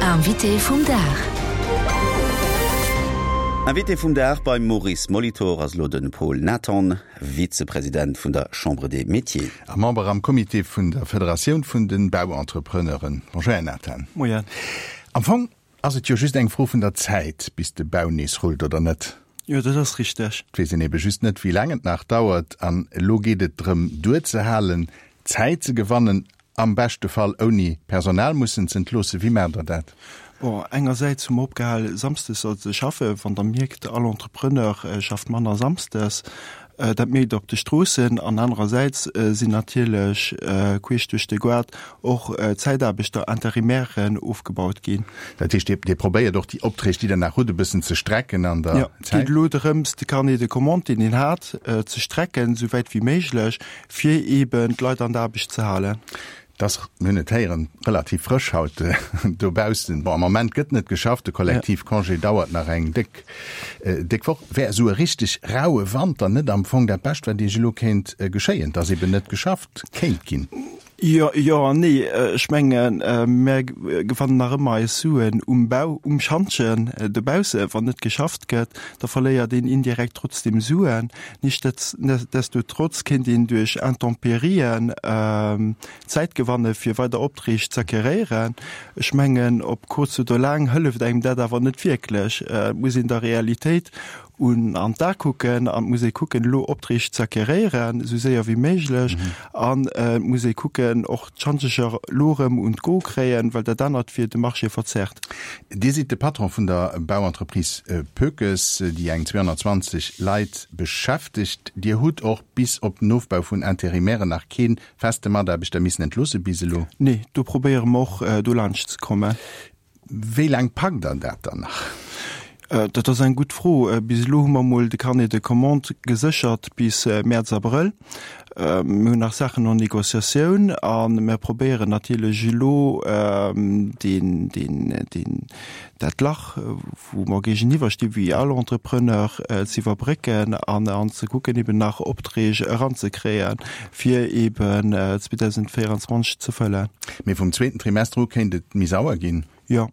Invité vum Dag. Invité vum Dag beim Maurice Molitor ass elo de Paul Nathan, Vizepresident vun der Chambre des Métiers. A Member am Comité vun der Federatioun vun de Bauentrepreneuren. Bonjour Här Nathan. Moien. Am Fong ass et jo just eng Fro vun der Zäit, bis de Bau nees rullt, oder net? Jo, dat ass richteg. Et weess een ebe just net, wéi laang et nach dauert. An elo geet et drëm, duerzehalen, Zäit ze gewannen, am beschte Fall ouni Personal mussen z'entloossen. Wéi maacht Der dat? Bon, engersäits hu mer opgehal, samsdes ze schaffen. Wann Der mierkt, all Entrepreneur schafft manner samsdes, dat mierkt Der op de Stroossen. An anerersäits sinn natierlech queesch duerch de Goart och Zäitaarbechter, Interimairen ofgebaut ginn. Dat heescht, Dir probéiert och déi Opträg, déi Der nach hutt, e bëssen ze strecken an der Zäit? Jo, et geet elo drëms, de Carnet de commandes, deen een hat, ze strecken, esou wäit wéi méiglech, fir eeben d'Leit an der Aarbecht ze halen. Et ass, mir hunn et héieren, relativ frësch haut dobaussen. Bon, am Moment gëtt net geschafft, de Kollektivcongé dauert nach eng déck, déck Woch. Wär esou e richteg raue Wanter net am Fong dat Bescht, wat Iech elo kéint geschéien, dass eeben net geschafft kéint ginn? Jo, jo an nee. Ech mengen, mär gewannen nach ëmmer eis Suen um Bau, um Schantjen dobausse. Wann net geschafft gëtt, da verléiert een indirekt trotzdem Suen. Nichtsdestotrotz kéint een duerch Intemperien Zäit gewanne fir weider Opträg z'acqueréieren. Ech mengen, op kuerz oder laang hëlleft engem dat awer net wierklech. Et muss een der Realitéit un an d'A kucken an et muss ee kucken, elo Opträg z'acqueréieren, esou séier wéi méiglech. An et muss ee kucken, och d'Schanzecher elo erëm un d'Go kréien, well dat anert wier de Marché verzerrt. Dir sidd de Patron vun der Bauentreprise Poekes, déi eng 220 Leit beschäftegt. Dir hutt och bis op den Ofbau vun Interimairen nach kee feste Mataarbechter missen entloosse bis elo? Nee, do probéiere mer och dolaanscht ze kommen. Wéi laang packt Der dat dann nach? Dat ass eng gutt Fro. Bis elo hu mer emol de Carnet de commandes geséchert bis Mäerz, Abrëll. Mir hunn nach Saachen en négociatioun a mir probéieren natierlech elo deen, deen, deen, dat Lach, wou mer géigeniwwer sti wéi all Entrepreneur, ze iwwerbrécken an an ze kucken, eben nach Opträg eranzekréien, fir eben 2024 ze fëllen. Mee vum zweeten Trimester u kéint et méi sauer ginn? Jo.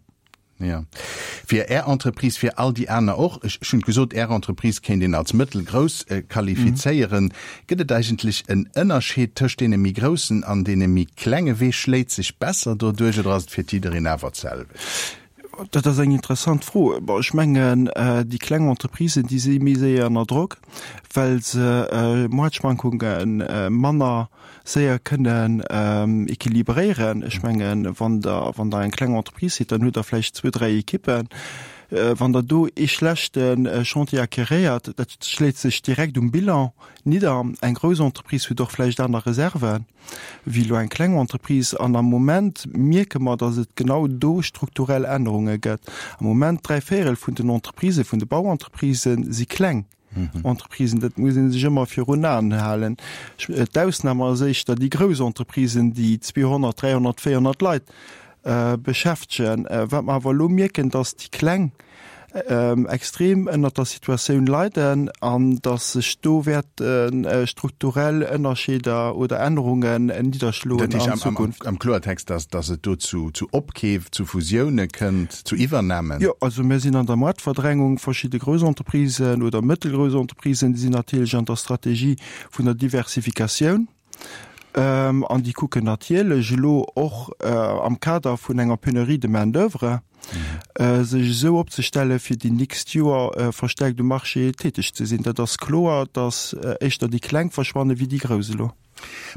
Jo. Fir Är Entreprise, fir all déi aner och. Ech hunn gesot, Är Entreprise kéint een als mëttelgrouss qualifizéieren. Gëtt et eigentlech en Ënnerscheed tëscht deene méi groussen an deene méi klenge? Wee schléit sech besser doduerch oder ass et fir jiddereen awer d'selwecht? Dat ass eng interessant Fro. Bon, ech mengen, déi kleng Entreprisen, déi si méi séier ënner Drock, well se Moartschwankunge manner séier kënnen équilibréieren. Ech mengen, wann Der, wann Der eng kleng Entreprise sidd, dann hutt Der vläicht zwou, dräi Ekippen. Wann Der do ee schlechte Chantier acquéréiert, dat schléit sech direkt um Bilan nidder. Eng grouss Entreprise huet och vläicht aner Reserven wéi elo eng kleng Entreprise. An am Moment mierke mer, datt et genau do strukturell Ännerunge gëtt. Am Moment dräivéierel vun den Entreprisen, vun de Bauentreprisen si kleng. Entreprisen, dat muss ee sech ëmmer virun Aen halen. D'Ausnam ass éischter déi grouss Entreprisen, déi 200, 300, 400 Leit beschäftegen. Wat mer awer elo mierken, datt déi kleng extrem ënnert der Situatioun leiden an datt sech do wäerte strukturell Ënnerscheeder oder Ännerungen nidderschloen an Zukunft. Dat heescht am Kloertext, datt et do zu Opkeef, zu Fusioune kënnt? Zu Iwwernamen? Jo, also mir sinn an der Moartverdrängung. Verschidde grouss Entreprisen oder mëttelgrouss Entreprisen, déi sinn natierlech an der Strategie vun der Diversifikatioun. An déi kucken natierlech elo och am Kader vun enger Pénurie de main d'oeuvre, sech esou opzestellen, fir déi nächst Joer verstärkt um Marché täteg ze sinn. Dat ass kloer, datt éischter déi Kleng verschwanne wéi déi Grouss elo.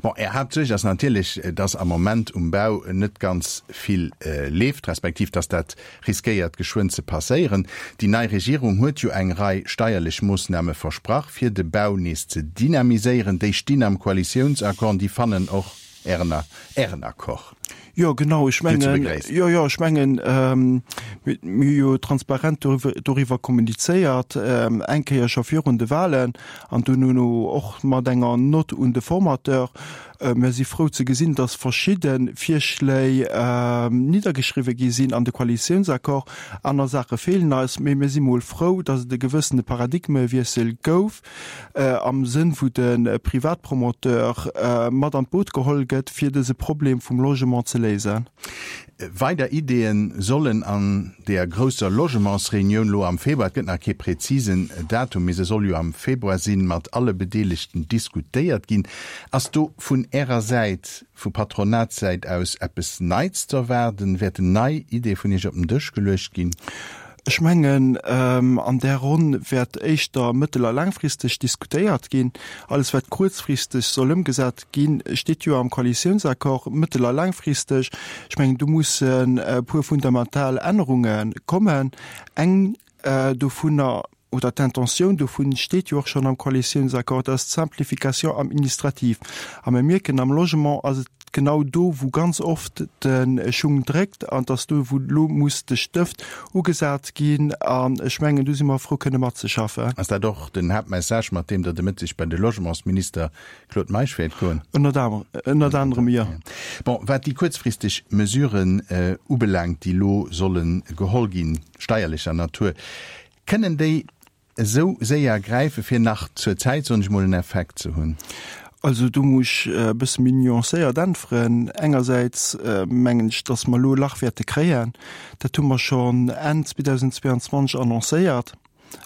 Bon, Är Haaptsuerg ass natierlech, dass am Moment um Bau net ganz vill leeft, respektiv dass dat riskéiert geschwënn ze passéieren. Déi nei Regierung huet jo eng Rei steierlech Moossname versprach, fir de Bau nees ze dynamiséieren. Déi stinn am Koalitiounsaccord an déi fannen och Ären Ären Accord. Jo, genau, ech mengen, jo, jo, ech mengen, mir hu jo transparent doriwwer kommunizéiert, eng Kéier scho virun de Wahlen an duerno och mat enger Nott un de Formateur. Mir si frou ze gesinn, dass verschidde Virschléi niddergeschriwwe gi sinn an de Koalitiounsaccord. Aner Saache feelen eis, mee mir si mol frou, dass et e gewëssene Paradigmewiessel gouf. am Sënn wou de Privatpromoteur mat an d'Boot geholl gëtt, fir dëse Problem vum Logement ze léisen. Weider Ideeë sollen an deeër grousser Logementsreunioun lo am Februar, et gëtt nach kee präzisen Datum, mee se soll jo am Februar sinn, mat alle Bedeelegten diskutéiert ginn. Ass do vun Ärer Säit, vu Patronatssäit aus eppes Neits ze erwaarden? Wäerten nei Ideeë vun Iech op den Dësch geluecht ginn? Ech mengen, an där Ronn wäert éischter mëttel a laangfristeg diskutéiert ginn. Alles wat kuerzfristeg soll ëmgesat ginn, steet jo am Koalitiounsaccord, mëttel a laangfristeg. Ech mengen, do mussen e puer fundamental Ännerunge kommen. Eng dovunner, oder d'Intentioun dovun steet jo och schonn am Koalitiounsaccord, dat ass d'Simplification administrative. A mir mierken, am Logement ass et genau do, wou ganz oft de Schung dréckt, an et ass do, wou elo muss de Stëft ugesat ginn. An ech mengen, do si mer frou, kënne matzeschaffen. Ass dat och den Haaptmessage, mat deem Der de Mëtteg bei de Logementsminister Claude Meisch wäert goen? Ënnert anerem, jo. Bon, wat déi kuerzfristeg Mesuren ubelaangt, déi elo solle geholl ginn, steierlecher Natur, Kënnen déi esou séier gräifen, fir nach zur Zäit, soen ech mol, en Effekt ze hunn? Also do muss ech e bësse méi nuancéiert äntweren. Engersäits mengen ech, datt mer elo e Lach wäerte kréien. Dat hu mer schonn Enn 2022 annoncéiert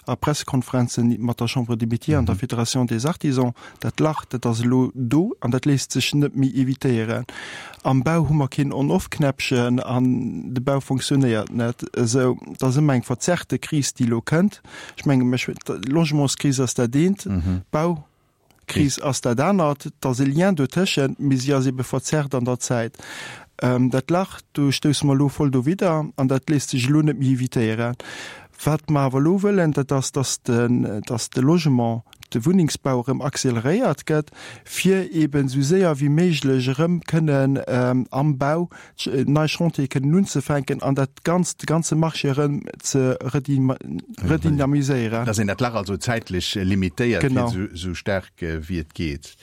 a Pressekonferenzen mat der Chambre des Métiers an der Fédération des Artisans. Dat Lach, dat ass elo do an dat léisst sech net méi evitéieren. Am Bau hu mer keen On-Off-Knäppchen an de Bau fonctionnéiert net esou. Et ass ëmmer eng verzerrte Kris, déi elo kënnt. Ech menge mech, d'Logementskris ass dat eent, d'Baukris ass dat anert. Et ass e Lien dotëschent, mee si ass ebe verzerrt an der Zäit. Dat Lach, do stousse mer elo voll dowidder an dat léisst sech elo net méi evitéieren. Wat mer awer elo wëllen, dat ass, dass de Logement, de Wunnengsbau erëm acceleréiert gëtt, fir eeben esou séier wéi méiglech erëm kënnen am Bau nei Chantiere kënnen unzefänken an dat Ganzt, de ganze Marché erëm ze redynamiséieren. Dass een dat Lach also zäitlech limitéiert, fir esou staark wéi et geet.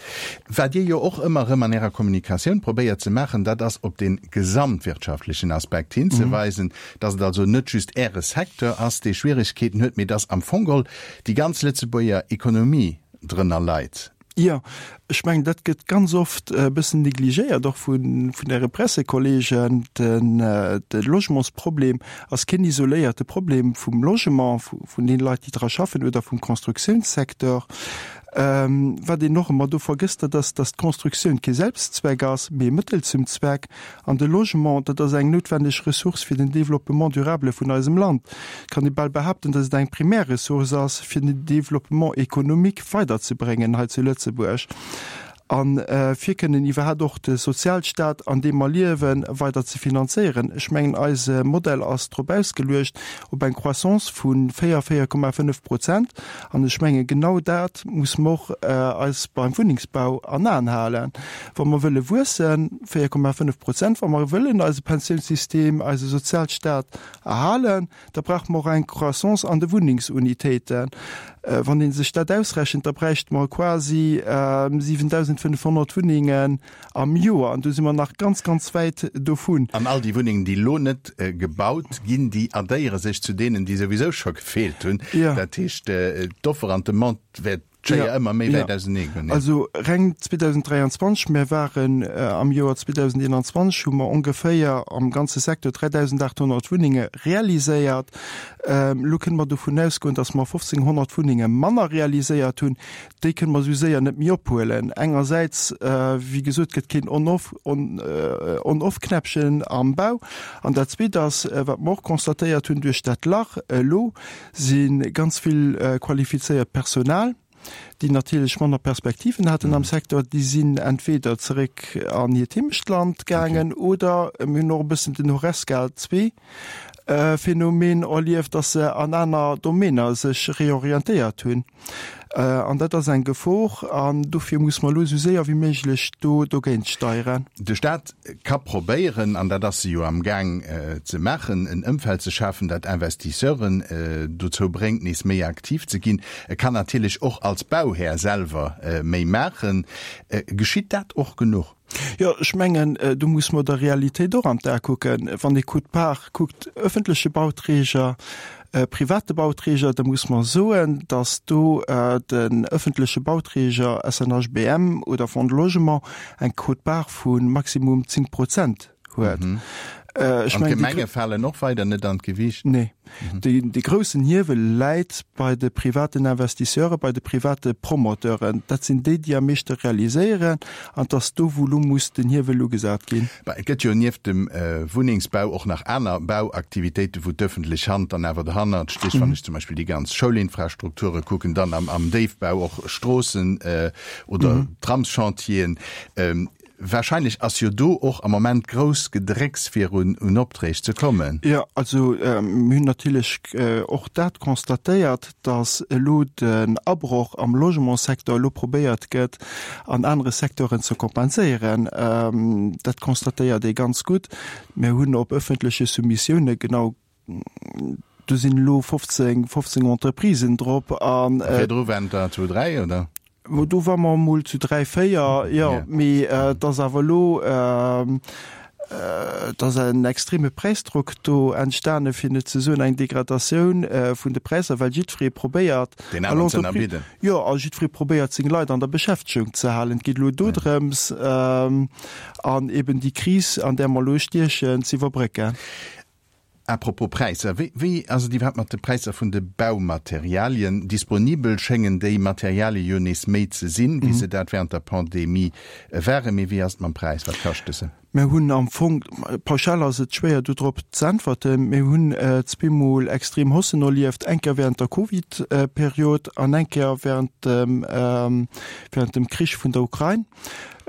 Wat Dir jo och ëmmer erëm an Ärer Kommunikatioun probéiert ze maachen, dat ass op dee gesamtwirtschaftlechen Aspekt hinzeweisen, dass et also net just Äre Secteur ass, dee Schwieregkeeten huet, mee dass am Fong geholl déi ganz Lëtzebuerger Ekonomie drënner leit. Jo, ech mengen, dat gëtt ganz oft e bëssen negligéiert, och vun Äre Pressekollegen. De Logementsproblem ass keen isoléierte Problem vum Logement, vun deene Leit, déi dra schaffen, oder vum Constructiounssecteur. Wat een och ëmmer do vergësst, dat ass, datt d'Constructioun kee Selbstzweck ass, mee e Mëttel zum Zweck. An de Logement, dat ass eng noutwendeg Ressource fir den Développement durable vun eisem Land. Et kann ee bal behaapten, datt et eng primär Ressource ass, fir den Développement économique weiderzebréngen hei zu Lëtzebuerg a fir kënnen iwwerhaapt och de Sozialstaat, an deem mer liewen, weider ze finanzéieren. Ech mengen, eise Modell ass drop ausgeluecht, op eng Croissance vu 4, 4,5 Prozent. An ech mengen, genau dat muss mer och eis beim Wunnengsbau an Aen halen. Wa mer wëlle wuessen, 4,5 Prozent, wa mer wëllen eise Pensiounssystem, eise Sozialstaat erhalen, da brauche mer och eng Croissance an de Wunnengsunitéiten. Wann ee sech dat ausrechent, da bräichte mer quasi 7.500 Wunnengen am Joer. An do si mer nach ganz, ganz wäit dovun. An all déi Wunnengen, déi elo net gebaut ginn, déi addéiere sech zu deenen, déi souwisou scho gefeelt hunn. Dat heescht, d'Offer an d'Demande wäert d'Schéier ëmmer méi wäit ausenee goen. Also reng 2023, mir waren am Joer 2021, hu mer ongeféier am ganze Secteur 3.800 Wunnenge realiséiert. Elo kënne mer dovun ausgoen, datt mer 1.500 Wunnenge manner realiséiert hunn. Déi kënne mer esou séier net méi ophuelen. Engersäits, wéi gesot, gëtt keen On-off, On-off-Knäppchen am Bau. An dat Zweet ass, wat mer och constatéiert hunn, duerch dat Lach elo si ganz vill qualifizéiert Personal, déi natierlech manner Perspektiven haten am Secteur, déi sinn entweder zeréck an hiert Heemechtland gaangen oder mir hunn och e bëssen den Horesca II-Phänomen erlieft, dass se an aner Domainer sech reorientéiert hunn. An dat ass eng Gefor an dofir muss mer elo esou séier wéi méiglech do dogéint steieren. De Staat ka probéieren, an dat ass e jo am Gaang ze maachen, en Ëmfeld ze schafen, dat Investisseuren dozou bréngt, nees méi aktiv ze ginn. E kann natierlech och als Bauhär selwer méi maachen. Geschitt dat och genuch? Jo, ech mengen, do muss mer der Realitéit och an d'A kucken. Wann ee Quote-part kuckt, öffentleche Bauträger, private Bauträger, da muss mer soen, datt do den öffentleche Bauträger SNHBM oder Fonds de Logement eng Quote-part vu maximum 10 Prozent huet. Ech mengen, déi. An d'Gemenge falen och weider net an d'Gewiicht? Nee. Dee groussen Hiewel läit bei de privaten Investisseuren, bei de private Promoteuren. Dat sinn déi, déi am meeschte realiséieren. An et ass do, wou elo muss den Hiewel ugesat ginn. Et gëtt jo nieft dem Wunnengsbau och nach aner Bauaktivitéiten, wou d'öffentlech Hand dann awer derhannert steet. Wann ech zum Beispill déi ganz Schoulinfrastrukture kucken, dann am Déifbau och Stroossen oder Tramschantieren. Wahrscheinlech ass jo do och am Moment grouss Gedrécks fir un Opträg ze kommen. Jo, also mir hunn natierlech och dat constatéiert, datt elo den Abroch am Logementssecteur elo probéiert gëtt an anere Secteuren ze kompenséieren. Dat constatéiert ee ganz gutt. Mir hunn op öffentleche Soumissioune genau Do sinn elo 15, 15 Entreprisen drop an. Virdru waren der zu 3, oder? Do ware mer emol zu 3, 4, jo. Mee et ass awer elo, et ass en extreme Präisdrock do entstane fir net ze soen eng Degradatioun vun de Präisser, well jiddweree probéiert, Deen aneren ze ënnerbidden. Jo, a jiddweree probéiert seng Leit an der Beschäftegung ze halen. Et geet elo dodrëms, an eben déi Kris, an där mer elo stiechen, ze iwwerbrécken. À propos Präisser, wéi ass et iwwerhaapt mat de Präisser vun de Baumaterialien? Disponibel schéngen déi Materialie jo nees méi ze sinn, wéi se dat wärend der Pandemie waren. Mee wéi ass et mam Präis? Wat kaschte se? Mir hunn am Fong, pauschal ass et schwéier do drop z'äntwerten, mir hunn zweemol extrem Haussen erlieft, eng Kéier wärend der Covid-Period an eng Kéier wärend dem, wärend dem Krich vun der Ukrain.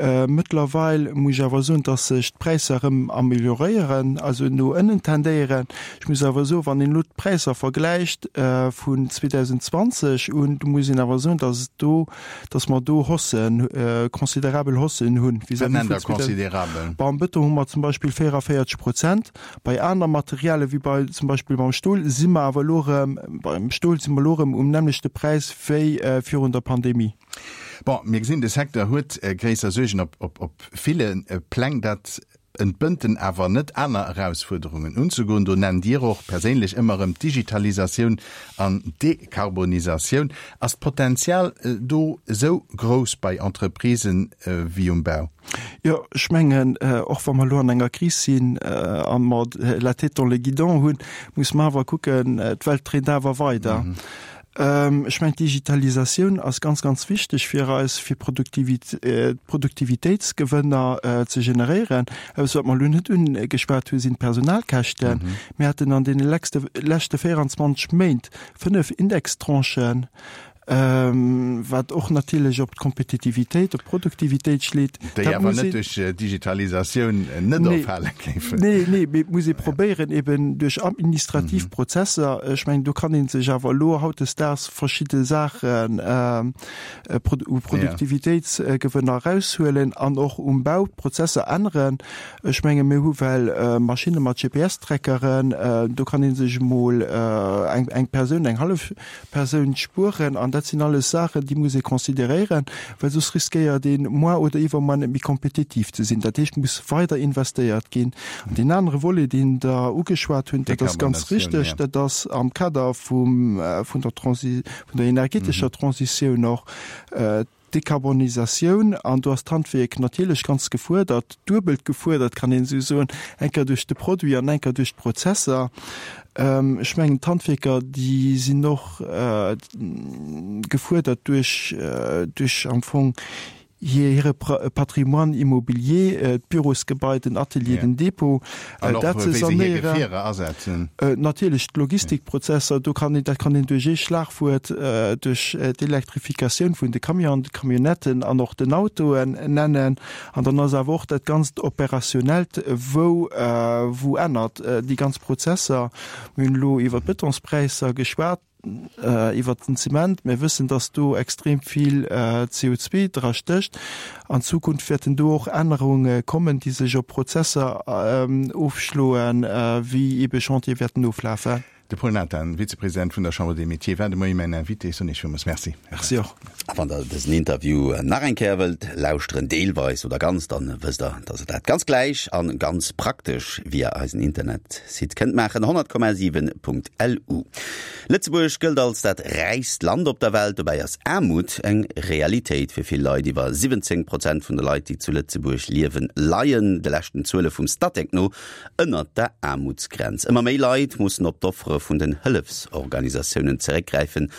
Mëttlerweil muss ech awer soen, dass sech d'Präisser erëm amelioréieren, also no ënnen tendéieren. Ech muss awer soen, wann een elo d'Präisser vergläicht vun 2020 un, do muss een awer soen, dass et do, dass mer do Haussen, considerabel Haussen hunn vis-à-vis vun. Wat nennt Der considerabel? Beim Bëton hu mer zum Beispill 44 Prozent. Bei aner Materialie wéi bei zum Beispill beim Stol si mer awer elo erëm, beim Stol si mer elo erëm um nämmlechte Präis wéi virun der Pandemie. Bon, mir gesinn, de Secteur huet gréisser Suergen op ville Pläng. Dat entbënnt en awer net, aner Erausfuerderungen unzegoen. Do nennt Dir och perséinlech ëmmer erëm d'Digitalisatioun an d'Dekarbonisatioun. Ass d'Potenzial do esou grouss bei Entreprisen wéi um Bau? Jo, ech mengen, och wa mer elo an enger Kris sinn a mer la tête dans le guidon hunn, muss mer awer kucken, d'Welt dréint awer weider. Ech mengen, d'Digitalisatioun ass ganz, ganz wichteg fir eis, fir Produktivitéitsgewënner ze generéieren. Eppes, wat mer elo net ugeschwat hunn, sinn d'Personalkäschten. Mir haten an deene leschte 24 Méint fënnef Indextranchen, wat och natierlech op d'Kompetitivitéit, op d'Produktivitéit schléit. Déi awer net duerch Digitalisatioun net erfale géifen. Nee, nee, mee et muss ee probéieren, eben duerch administrativ Prozesser, ech mengen, do kann ee sech awer elo hautdesdaags verschidde Saachen u Produktivitéitsgewënner eraushuelen an och um Bau d'Prozesser änneren. Ech menge mir hu well Maschinne mat GPS-Trackeren, do kann ee sech emol eng Persoun, eng hallef Persoun spueren. An dat sinn alles Saachen, déi muss ee consideréieren, well soss riskéiert een, moar oder iwwermoar net méi kompetitiv ze sinn. Dat heescht, et muss weider investéiert ginn. An deen anere Volet, deen Der ugeschwat hunn, dat ass ganz richteg, dat ass am Kader vum, vun der Transi, vun der energetescher Transitioun och, D'Dekarbonisatioun, an do ass d'Handwierk natierlech ganz gefuerdert, duebelt gefuerdert, kann een esou soen, eng Kéier duerch de Produit an eng Kéier duerch d'Prozesser. Ech mengen, d'Handwierker, déi sinn och gefuerdert duerch, duerch am Fong hire Patrimoine immobilier, d'Bürosgebai, den Atelier, den Dépôt. An och, wéi se hir Gefierer asetzen. Natierlech d'Logistikprozesser, do kann een, dat kann een duerch ee Schlagwuert, duerch d'Elektrifikatioun vun de Camionen, de Camionnetten an och den Autoen nennen. An dann ass awer och dat ganzt Operationellt, wou, wou ännert déi ganz Prozesser. Mir hunn elo iwwer d'Bëtonspräisser geschwat. Iwwert den Zement, mir wëssen, dass do extrem vill CO2 dra stécht. An Zukunft wäerten do och Ännerunge kommen, déi sech op Prozesser ofschloen, wéi ebe Chantiere wäerten oflafen. De Paul Nathan, Vizepresident vun der Chambre des Métiers, war de Moie mäin Invité. Ech soen Iech villmools Merci. Merci och. A wann der dësen Interview nach eng Kéier wëllt lauschteren, deelweis oder ganz, dann wësst der, dass der dat ganz gläich an ganz praktesch via eisen Internetsite kënnt maachen, 100,7.lu. Lëtzebuerg gëllt als dat räichst Land op der Welt. Dobäi ass Aarmut eng Realitéit fir vill Leit. Iwwer 17 Prozent vun de Leit, déi zu Lëtzebuerg liewen, leien de leschten Zuele vum Statec no ënnert der Aarmutsgrenz. Ëmmer méi Leit mussen op d'Offere vun den Hëllefsorganisatiounen zeréckgräifen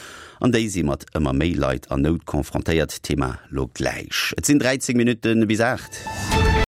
an déi si mat ëmmer méi Leit an Nout confrontéiert. Thema lo gläich. Et sinn 13 Minutte bis 8.